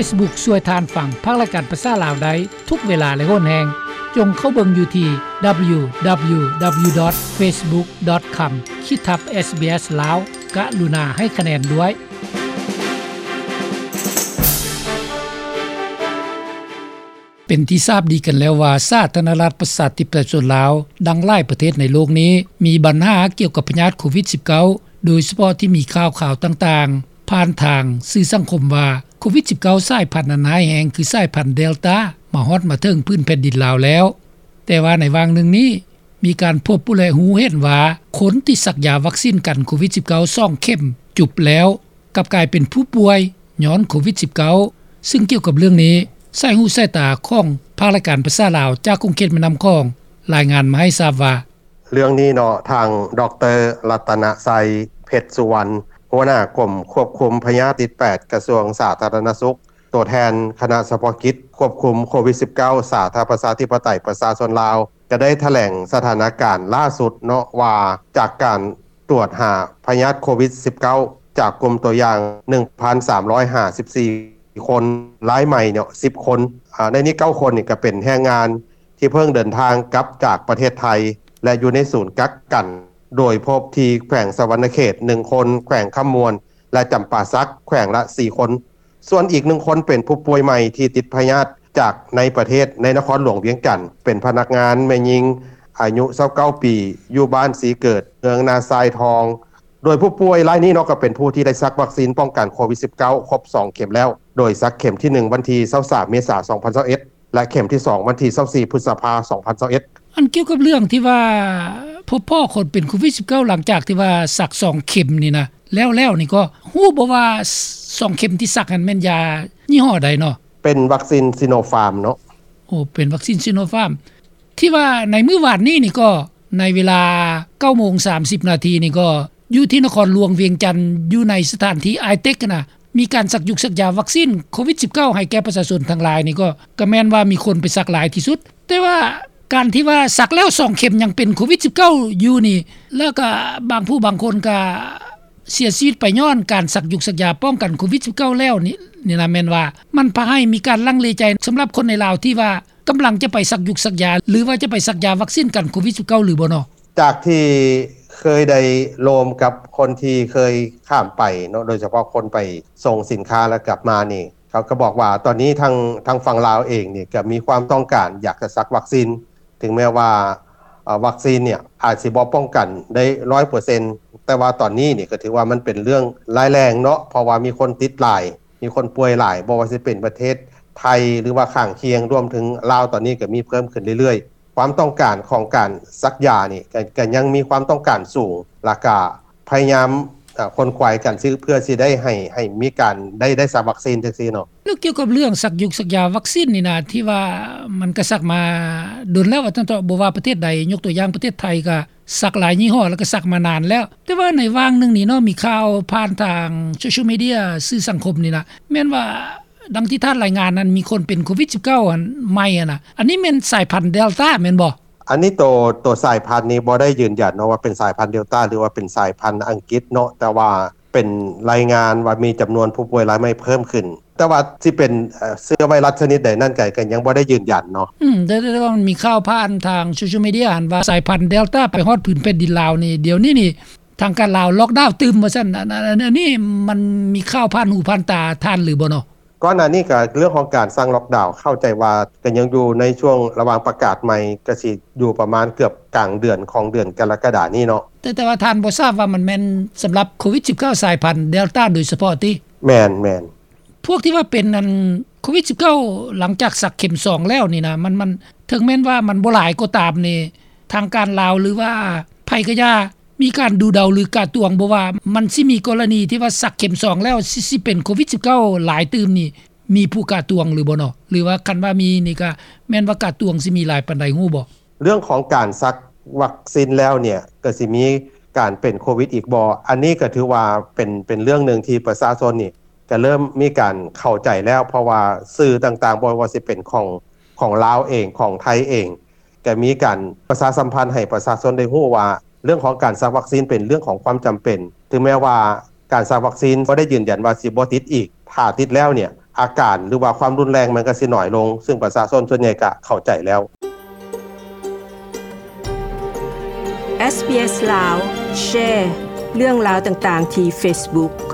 Facebook ຊ່ວຍທ່ານຟັງພາກລາຍການພາສາລາວໄດ້ທຸກເວລາ ແລະ ໂຫນແຮງ. ຈົ່ງເຂົ້າເບິ່ງຢູ່ທີ່ www.facebook.com ຂີດທັບ SBS Lao ກະລຸນາໃຫ້ຄະແນນດ້ວຍ. ເປັນທີ່ຊາບດີກັນແລ້ວວ່າ ສາທາລະນະລັດ ປະຊາທິປະໄຕ ປະຊາຊົນລາວ ດັ່ງຫຼາຍປະເທດໃນໂລກນີ້ ມີບັນຫາກ່ຽວກັບພະຍາດໂຄວິດ-19 ໂດຍສະເພາະທີ່ມີຂ່າວຄາວຕ່າງໆ ຜ່ານທາງສື່ສັງຄົມວ່າ ໂຄວິດ-19 ສາຍພັນອັນຮ້າຍແຮງ ຄືສາຍພັນເດລຕາ ມາຮອດມາເຖິງພື້ນແຜ່ນດິນລາວແລ້ວ. ແຕ່ວ່າໃນຫວ່າງໜຶ່ງນີ້ ມີການພົບ ແລະ ຮູ້ເຫັນວ່າ ຄົນທີ່ສັກຢາວັກຊີນກັນໂຄວິດ-19 ສອງເຂັມຈຸບແລ້ວ ກັບກາຍເປັນຜູ້ປ່ວຍຍ້ອນໂຄວິດ-19. ຊຶ່ງກ່ຽວກັບເລື່ອງນີ້ ສາຍຫູສາຍຕາຂອງພາກລາຍການພາສາລາວ ຈາກຂົງເຂດແມ່ນ້ຳຂອງ ລາຍງານມາໃຫ້ຊາບວ່າ: ເລື່ອງນີ້ເນາະ ທາງ ດຣ. ລັດຕະນະໄຊ ເພັດສຸວັນ ຫົວໜ້າກົມຄວບຄຸມພະຍາດຕິດແປດ ກະຊວງສາທາລະນະສຸກ ຕົວແທນຄະນະສະເພາະກິດຄວບຄຸມໂຄວິດ-19 ສາທາລະນະລັດ ປະຊາທິປະໄຕ ປະຊາຊົນລາວ ກະໄດ້ຖະແຫຼງສະຖານະການລ່າສຸດເນາະ ວ່າຈາກການ ຕວດຫາພະຍາດໂຄວິດ-19 ຈາກກຸ່ມຕົວຢ່າງ ໜຶ່ງພັນສາມຮ້ອຍຫ້າສິບສີ່ຄົນ ລາຍໃໝ່ເນາະ ສິບຄົນ. ອາ ໃນນີ້ ເກົ້າຄົນນີ້ກະເປັນແຮງງານທີ່ເພິ່ງເດີນທາງກັບຈາກປະເທດໄທ ແລະ ຢູ່ໃນສູນກັກກັນ ໂດຍພົບທີ່ແຂວງສະຫວັນນະເຂດ ໜຶ່ງຄົນ, ແຂວງຄຳມ່ວນ ແລະ ຈຳປາສັກ ແຂວງລະສີ່ຄົນ. ສ່ວນອີກໜຶ່ງຄົນເປັນຜູ້ປ່ວຍໃໝ່ທີ່ຕິດພະຍາດຈາກໃນປະເທດ ໃນນະຄອນຫຼວງວຽງຈັນ ເປັນພະນັກງານແມ່ຍິງອາຍຸຊາວເກົ້າປີ ຢູ່ບ້ານສີເກີດ ເມືອງນາຊາຍທອງ. ໂດຍຜູ້ປ່ວຍລາຍນີ້ເນາະ ກໍເປັນຜູ້ທີ່ໄດ້ສັກວັກຊີນປ້ອງກັນໂຄວິດ-19 ຄົບສອງເຂັມແລ້ວ ໂດຍສັກເຂັມທີໜຶ່ງວັນທີຊາວສາມເມສາ ສອງພັນຊາວເອັດ ແລະ ເຂັມທີສອງວັນທີຊາວສີ່ພຶດສະພາ ສອງພັນຊາວເອັດ. ອັນກ່ຽວກັບເລື່ອງທີ່ວ່າ ພົບພໍ້ຄົນເປັນໂຄວິດ-19 ຫຼັງຈາກທີ່ວ່າສັກສອງເຂັມນີ້ນະ ແລ້ວໆນີ້ ກໍຮູ້ບໍ່ວ່າສ- ສອງເຂັມທີ່ສັກຫັ້ນແມ່ນຢາຍີ່ຫໍ້ໃດເນາະ? ເປັນວັກຊີນຊີໂນຟາມເນາະ. ໂອ້ ເປັນວັກຊີນຊີໂນຟາມ ທີ່ວ່າໃນມື້ວານນີ້ນີ້ກໍ ໃນເວລາເກົ້າໂມງສາມສິບນາທີນີ້ກໍ ຢູ່ທີ່ນະຄອນຫຼວງວຽງຈັນ ຢູ່ໃນສະຖານທີ່ ITEC ນະ ມີການສັກຍຸກສັກຢາວັກຊີນໂຄວິດ-19 ໃຫ້ແກ່ປະຊາຊົນທັງຫຼາຍນີ້ ກໍ ກໍແມ່ນວ່າມີຄົນໄປສັກຫຼາຍທີ່ສຸດ. ແຕ່ວ່າການທີ່ວ່າສັກແລ້ວສອງເຂັມຍັງເປັນໂຄວິດ-19 ຢູ່ນີ້ ແລ້ວກໍບາງຜູ້ບາງຄົນກໍເສຍຊີວິດໄປຍ້ອນການສັກຍຸກສັກຢາປ້ອງກັນໂຄວິດ-19 ແລ້ວນີ້ ນີ້ນະ ແມ່ນວ່າມັນພາໃຫ້ມີການລັງເລໃຈ ສຳລັບຄົນໃນລາວທີ່ວ່າ ກຳລັງຈະໄປສັກຍຸກສັກຢາ ຫຼືວ່າຈະໄປສັກຢາວັກຊີນກັນໂຄວິດ-19 ຫຼືບໍ່ເນາະ? ຈາກທີ່ເຄີຍໄດ້ໂລມກັບຄົນທີ່ເຄີຍຂ້າມໄປເນາະ ໂດຍສະເພາະຄົນໄປສົ່ງສິນຄ້າແລ້ວກັບມານີ້ ເຂົາກໍບອກວ່າຕອນນີ້ທາງ ທາງຝັ່ງລາວເອງນີ້ກໍມີຄວາມຕ້ອງການຢາກຈະສັກວັກຊີນ ເຖິງແມ້ວ່າ ເອີ ວັກຊີນນີ້ອາດຊິບໍ່ປ້ອງກັນໄດ້ຮ້ອຍເປີເຊັນ ແຕ່ວ່າຕອນນີ້ນີ້ກໍຖືວ່າມັນເປັນເລື່ອງຮ້າຍແຮງເນາະ ເພາະວ່າມີຄົນຕິດຫຼາຍ ມີຄົນປ່ວຍຫຼາຍ ບໍ່ວ່າຊິເປັນປະເທດໄທ ຫຼືວ່າຂ້າງຄຽງ ລວມເຖິງລາວ ຕອນນີ້ກໍມີເພີ່ມຂຶ້ນເລື້ອຍໆ. ຄວາມຕ້ອງການຂອງການສັກຢານີ້ ກໍ ກໍຍັງມີຄວາມຕ້ອງການສູງ ແລ້ວກໍພະຍາຍາມ ເອີ ຂົນຂວາຍກັນ ເພື່ອຊິໄດ້ໃຫ້ ໃຫ້ມີການໄດ້ ໄດ້ສັກວັກຊີນຈັ່ງຊີ້ເນາະ. ແລ້ວກ່ຽວກັບເລື່ອງສັກຍຸກສັກຢາວັກຊີນນີ້ນະ ທີ່ວ່າມັນກໍສັກມາດົນແລ້ວ ວ່າຊັ້ນເຖາະ ບໍ່ວ່າປະເທດໃດ ຍົກຕົວຢ່າງປະເທດໄທກໍ ສັກຫຼາຍຍີ່ຫໍ້ ແລ້ວກໍສັກມານານແລ້ວ. ແຕ່ວ່າໃນຫວ່າງໜຶ່ງນີ້ເນາະ ມີຂ່າວຜ່ານທາງໂຊຊຽວມີເດຍ ສື່ສັງຄົມນີ້ນະ ແມ່ນວ່າດັ່ງທີ່ທ່ານລາຍງານນັ້ນ ມີຄົນເປັນໂຄວິດ-19 ອັນໃໝ່ຫັ້ນນະ ອັນນີ້ແມ່ນສາຍພັນເດລຕາແມ່ນບໍ່? ອັນນີ້ໂຕ ໂຕສາຍພັນນີ້ບໍ່ໄດ້ຢືນຢັນເນາະວ່າເປັນສາຍພັນເດລຕາ ຫຼືວ່າເປັນສາຍພັນອັງກິດເນາະ ແຕ່ວ່າ ເປັນລາຍງານວ່າມີຈຳນວນຜູ້ປ່ວຍລາຍໃໝ່ເພີ່ມຂຶ້ນ ແຕ່ວ່າຊິເປັນ ເອີ ເຊື້ອໄວຣັສຊະນິດໃດນັ້ນ ກໍ ກໍຍັງບໍ່ໄດ້ຢືນຢັນເນາະ. ອືມ ແຕ່ ແຕ່ ແຕ່ວ່າມັນມີຂ່າວຜ່ານທາງໂຊຊຽວມີເດຍຫັ້ນວ່າ ສາຍພັນເດລຕາໄປຮອດພື້ນແຜ່ນດິນລາວນີ້ ດຽວນີ້ນີ້ ທາງການລາວລັອກດາວຕື່ມວ່າຊັ້ນ ອັນ ອັນ ອັນ ອັນນີ້ມັນມີຂ່າວຜ່ານຫູຜ່ານຕາທ່ານຫຼືບໍ່ເນາະ? ກ່ອນໜ້ານີ້ກໍເລື່ອງຂອງການສັ່ງລັອກດາວ ເຂົ້າໃຈວ່າກໍຍັງຢູ່ໃນຊ່ວງລະຫວ່າງປະກາດໃໝ່ ກໍຊິຢູ່ປະມານເກືອບກາງເດືອນຂອງເດືອນກໍລະກະດານີ້ເນາະ. ແຕ່ ແຕ່ວ່າທ່ານບໍ່ຊາບວ່າມັນແມ່ນສຳລັບໂຄວິດ-19 ສາຍພັນເດລຕາໂດຍສະເພາະຕິ? ແມ່ນ ແມ່ນ. ພວກທີ່ວ່າເປັນອັນໂຄວິດ-19 ຫຼັງຈາກສັກເຂັມສອງແລ້ວນີ້ນະ ມັນ ມັນ ເຖິງແມ່ນວ່າມັນບໍ່ຫຼາຍກໍຕາມນີ້ ທາງການລາວ ຫຼືວ່າໃຜກໍຢ່າ ມີການດູເດົາ ຫຼືກະຕວງບໍ່ວ່າ ມັນຊິມີກໍລະນີທີ່ວ່າສັກເຂັມສອງແລ້ວ ຊິ ຊິເປັນໂຄວິດ-19 ຫຼາຍຕື່ມນີ້ ມີຜູ້ກະຕວງຫຼືບໍ່ເນາະ? ຫຼືວ່າຄັນວ່າມີນີ້ກະແມ່ນວ່າກະຕວງຊິມີຫຼາຍປານໃດ ຮູ້ບໍ່? ເລື່ອງຂອງການສັກວັກຊີນແລ້ວເນ່ຍ ກໍຊິມີການເປັນໂຄວິດອີກບໍ່? ອັນນີ້ກໍຖືວ່າເປັນ ເປັນເລື່ອງໜຶ່ງທີ່ປະຊາຊົນນີ້ ກໍເລີ່ມມີການເຂົ້າໃຈແລ້ວ ເພາະວ່າສື່ຕ່າງໆ ບໍ່ວ່າຊິເປັນຂອງ ຂອງລາວເອງ ຂອງໄທເອງ ກໍມີການປະຊາສຳພັນໃຫ້ປະຊາຊົນໄດ້ຮູ້ວ່າ ເລື່ອງຂອງການສັກວັກຊີນເປັນເລື່ອງຂອງຄວາມຈຳເປັນ ເຖິງແມ້ວ່າການສັກວັກຊີນບໍ່ໄດ້ຢືນຢັນວ່າຊິບໍ່ຕິດອີກ ຖ້າຕິດແລ້ວເນ່ຍ ອາການ ຫຼືວ່າຄວາມຮຸນແຮງມັນກໍຊິໜ້ອຍລົງ ຊຶ່ງປະຊາຊົນສ່ວນໃຫຍ່ກໍເຂົ້າໃຈແລ້ວ. ເອສບີເອສລາວ ແຊເລື່ອງລາວຕ່າງໆທີ່ເຟສບຸກ